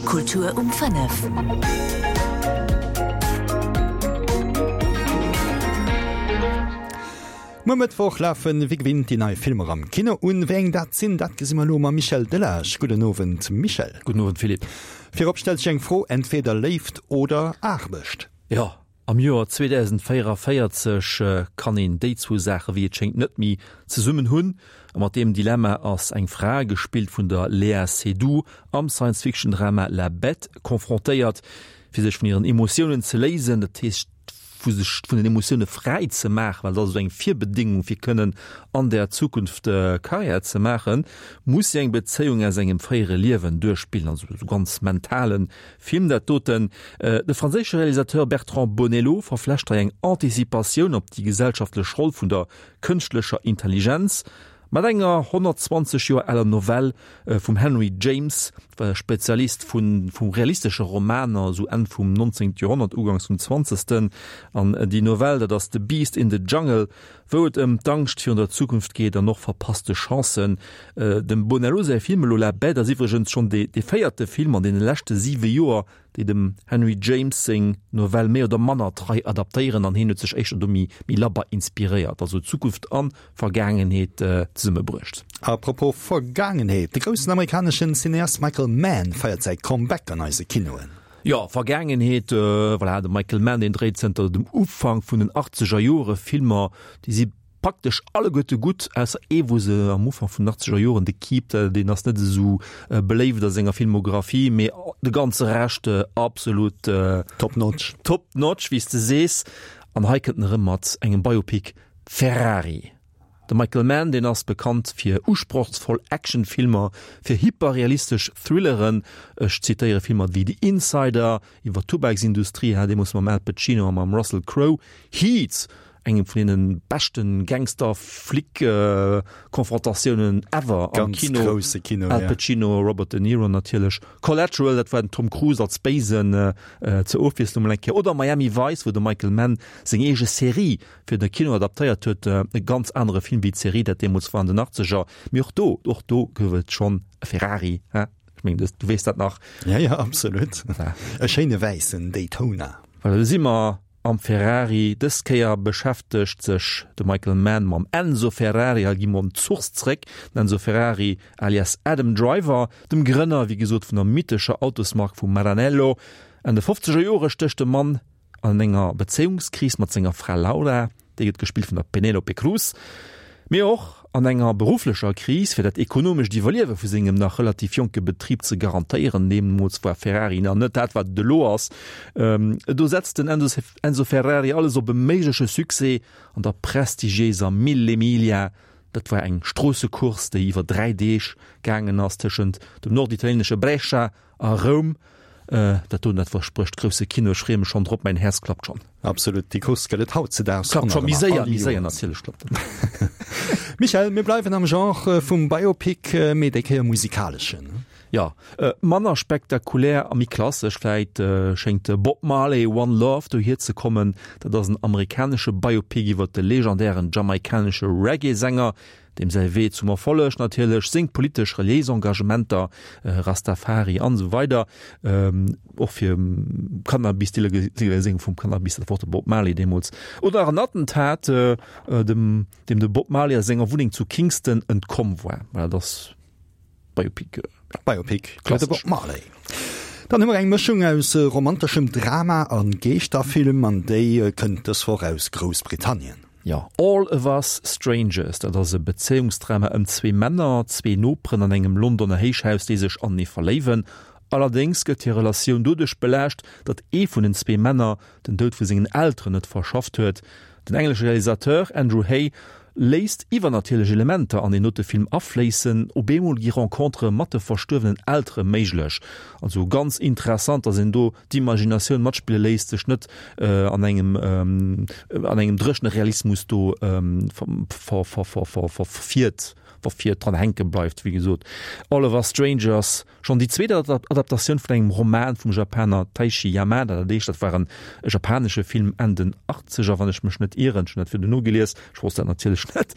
Kultur um 5. Muer Mëttwoch lafen wéi gewinnt déi nei Filmer am Kino un. Wéi eng dat sinn, dat gesi mer elo mam Michel Delage. Gudden Owend Michel. Gudden Owend Philippe. Virop stellt sech eng Fro, entweder Léift oder Aarbecht? Jo, am Joer 2044 kann een déi zwou Saache wéi et schéngt net méi zesummen hunn. A mat deem Dilemma ass eng Fra, gespillt vun der Léa Seydoux, am Science-Fiction-Drama La Bête confrontéiert, fir sech vun hiren Emotiounen ze léisen, dat heescht vu sech vun den Emotioune fräi ze maachen, well dat ass esou eng Virbedéngung fir kënnen an der Zukunft Karriär ze maachen, muss si eng Bezéiung aus engem fréiere Liewen duerchspillen, also esou ganz mentale Film dat doten. De franséische Realisateur Bertrand Bonello verflecht hei eng Anticipatioun op déi gesellschaftlech Roll vun der kënschtlecher Intelligenz mat enger 120 Joer aler Novell vum Henry James, war e Spezialist vu vu realistesche Romaner, esou Enn vum 19. Joerhonnert, uganks vum 20. An déi Novell, dat ass The Beast in the Jungle, wou et ëm d'Angscht virun der Zukunft geet an och verpasste Chancen. Dem Bonello säi Film elo La Bête ass iwwregens schonn dee véierte Film an deene leschte siwe Joer, déi dem Henry James seng Novell méi oder manner trei adaptéieren an hien huet sech éischter do méi méi labber inspiréiert, also Zukunft an Vergaangenheet zesummebruecht. A propos Vergaangenheet, de groussen amerikaneschen Cineast Michael Mann feiert säi Comeback an eise Kinoen. Jo, Vergaangenheet, voilà, de Michael Mann, deen dréit zënter dem Ufank vun den achtzeger Jore Filmer, déi si praktesch alleguerte gutt, ausser ee wou se am Ufank vun den achtzeger Joren, The Keep, deen ass net esou beléift a senger Filmographie, mee de ganze Rescht absolut Top notch. Top notch, wéi s de sees. An hei kënnt en erëm mat engem Biopic, Ferrari. De Michael Mann, deen ass bekannt fir usprochsvoll Actionfilmer, fir hyperrealistesch Thrilleren, ech zitéiere Filmer wéi The Insider, iwwer d'Tubaksindustrie, deemools mam Al Pacino a mam Russell Crowe, Heat, engem vun deene beschten Gangster-Flic-Konfrontatiounen ever am Ganz Kino. Grousse Kino, Al Pacino, Robert De Niro natierlech. Collateral, dat war den Tom Cruise als Béisen zur Ofwiesslung mol eng Kéier. Oder Miami Vice, wou de Michael Mann seng eege Serie fir de Kino adaptéiert huet. E ganz anere Film wéi d'Serie, dat deemools war an den Achtzeger. Mee och do, och do gouf et schonn e Ferrari, he? Ech mengen, du weess dat nach. Ja, ja, absolut. E schéine wäissen Daytona. Voilà, do si mer Am Ferrari, dës Kéier beschäftegt sech de Michael Mann mam Enzo Ferrari. Hei gi mer un d'Source zréck, den Enzo Ferrari alias Adam Driver, dem Grënner, wéi gesot, vun der mythescher Autosmark vu Maranello. Enn de fofzeger Jore stécht de Mann an enger Bezéiungskris mat senger Fra Laura. Déi gëtt gespillt vun der Penélope Cruz. Mee och an enger berufflecher Kris, fir dat ekonomescht Iwwerliewe vu sengem nach relativ jonke Betrib ze garantéieren. Deemools war Ferrari nach net dat, wat et elo ass. Do setzt den Enzo Ferrari alles op e méigleche Succès an der prestigiéiser Mille Miglia. Dat war eng Stroossecourse, déi iwwer 3 Deeg gaangen ass tëschent dem norditalienesche Brescia A Roum, dat doen, dat versprécht grousse Kino. Ech freeë mech schonn drop, mäin Häerz klappt schonn. Absolut, déi Course gëtt et hautzedaags Klappt scho méi séier, méi séier natierlech klappt en. Michèle, mir bleiwen am Genre vum Biopic, mee déi Kéier musikaleschen. Jo, manner spektakulär a méi klassesch vläit schéngt Bob Marley, One Love dohier ze kommen. Dat ass en amerikanesche Biopic iwwer de legendären jamaikanesche Reggae-Sänger, Deem säi Wee zum Erfolleg natierlech, seng politesch, reliéis Engagementer, Rastafari an esou weider, och fir Cannabis, d'Illegaliséierung vum Cannabis, dat war och de Bob Marley deemools, oder nach en Attentat, dem deem de Bob Marley a senger Wunneng zu Kingston entkomm war. Voilà, dat ass Biopic. Biopic iwwer de Bob Marley. Dann hu mer eng Mëschung aus romanteschem Drama a Geeschterfilm an déi kënnt dës Woch aus Groussbritannien. Jo, All of Us Strangers, dat ass e Bezéiungsdrama ëm zwee Männer, zwee Noperen an engem Londoner Héichhaus, déi sech anenee verléiwen. Allerdéngs gëtt hir Relatioun doduerch belaascht, datt ee vun den zwee Männer den Doud vu sengen Elteren net verschafft huet. Den englesche Realisateur Andrew Hay léisst iwwernatierlech Elementer an deen dote Film afléissen. Op eemol gi Rencontere mat de verstuerwenen Eltere méiglech. Also ganz interessant, datt een do d'Imaginatioun matspille léisst, sech net an engem an engem dréchene Realismus do verfiert, verfiert, dran hänke bleift. Wéi gesot, All of Us Strangers, schonn déi zweet Adaptatioun vun engem Roman vum Japaner Taishi Yamada, dat éischt, dat war en japanesche Film Enn den Achtzeger, wann ech mech net ieren, ech hunn dat virdu nogelies, ech wosst dat natierlech net.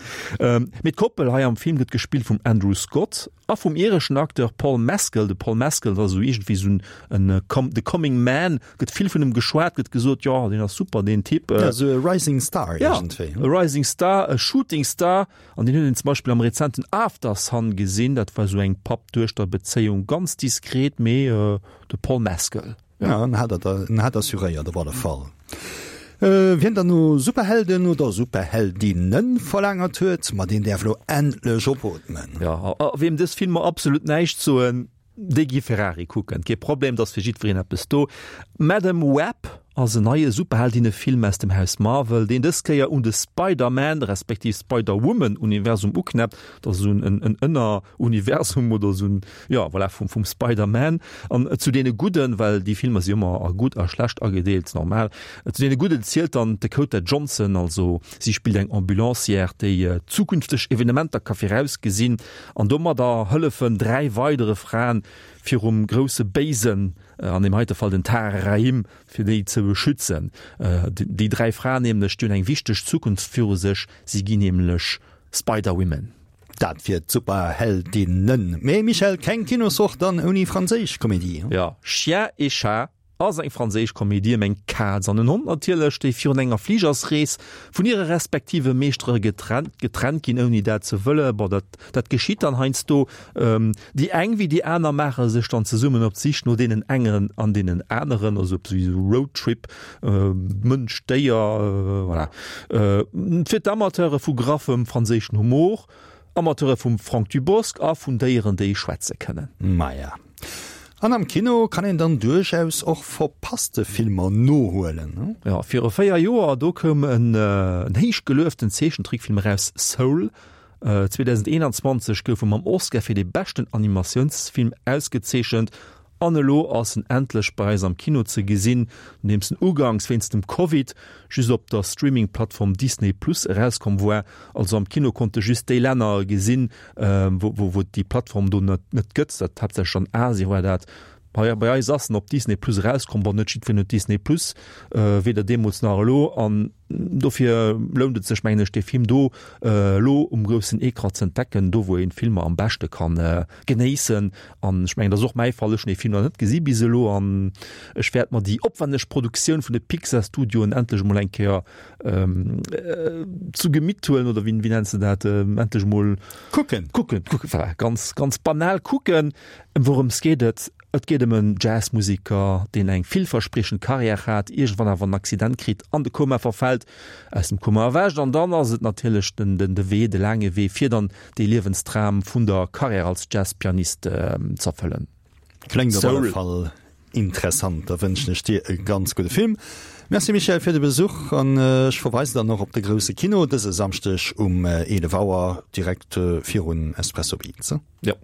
Mee d'Koppel hei am Film gëtt gespillt vum Andrew Scott. A vum ireschen Acteur Paul Mescal. De Paul Mescal ass esou iergendwéi esou en the coming man, gëtt vill vun em geschwat, gëtt gesot, jo deen ass super deen Typ. Ja, esou e Rising Star iergendwéi. Ja, e Rising Star, e Shooting Star. An deen huet een zum Beispill am rezenten Aftersun gesinn. Dat war esou eng Papp-Duechter-Bezéiung, ganz diskret, mee de Paul Mescal. Ja, en hat en hat assuréiert op alle Fall. Wien dann no Superhelden oder Superheldinnen verlaangert huet, ma deen däerf lo endlech opootmen. Ja, a wiem dës Filmer absolut näischt soen, déi gi Ferrari kucken. Kee Problem, et ass fir jiddwereen eppes do. Madame Web ass en neie Superheldinnefilm aus dem Haus Marvel, deen dës Kéier un de Spider-Man respektiv Spider-Woman-Universum uknäppt. Dat ass esou en Ënner Universum oder esou en, jo voilà, vum, vum Spider-Man. An zu deene Gudden, well déi Filmer si ëmmer a gutt a schlecht agedeelt, normal, zu deene Gudden zielt dann d'Dakota Johnson, also si spillt eng Ambulancière, déi zukünfteg Evenementer ka virausgesinn an domadder hëllefen 3 weidere Fraen virum grousse Béisen, an deem heite Fall den Tahar Rahim, fir déi ze beschützen. Déi 3 Fraen nämlech, déi hunn eng wichteg Zukunft viru sech, si ginn nämlech Spider-Women. Dat fir d'Superheldinnen. Mee Michèle, keng Kinoswoch dann ouni franséisch Komedie. Jo, Chien et Chat ass eng franséisch Komedie ëm eng Kaz an en Hond natierlech, déi virun enger Fligersrees vun hire respektive Meeschtere getrennt getrennt ginn, ouni dat ze wëllen. Bon, dat dat geschitt dann heiansdo. Déi eng wéi déi aner maache sech dann zesummen op d'Sich no deenen engen an deenen aneren, also op esou e Roadtrip, Mënsch, Déier, voilà. Fir d'Amateure vu graffem franséischen Humor, Amateure vum Franck Dubosc a vun Déieren, déi schwätze kënnen. Maja. An am Kino kann een dann duerchaus och verpasste Filmer nohuelen, ne? Jo, viru 4 Joer, do koum en héich gelueften Zeechentrickfilm eraus, Soul. 2021 gouf e mam Oscar fir de beschten Animatiounsfilm ausgezeechent An elo ass en endlech bei eis am Kino ze gesinn, nodeems en ugangs wéinst dem Covid just op der Streaming-Plattform Disney Plus erauskomm war. Also am Kino konnte just déi Länner gesinn, wou et déi Plattform do net gëtt, dat haaptsächlech an Asien war dat. Bei eis ass en op Disney Plus erauskomm, bon net jiddwereen huet Disney Plus, weder deemools nach elo. An Dofir lount et sech, mengen ech, dee Film do elo um groussen Ecran ze entdecken, do wou een Filmer am beschte kann genéissen. An ech mengen, dat ass och mäi Fall, ech hunn dee Film nach net gesi bis elo an ech wäert mer déi opwänneg Produktioun vun de Pixar Studioen endlech emol eng Kéier zu Gemitt huelen, oder wéi nenns de dat, endlech emol kucken. Kucken, kucken, voilà, ganz, ganz banal kucken. Ëm wourëms geet et? Et geet ëm en Jazzmuseker, deen eng villverspriechend Karriär hat, iergendwann awer en Accident kritt, an de Koma verfält, aus dem Koma erwächt an dann ass et natierlech den de Wee, de laange Wee, fir dann dee Liewensdram vun der Karriär als Jazzpianist z'erfëllen. Kléngt op alle Fall interessant. Da wënschen ech dir e ganz gudde Film. Merci Michèle fir de Besuch an ech verweisen dann och op de grousse Kino dëse Samschdeg um 11 Auer direkt virun Espresso Beats. Jo.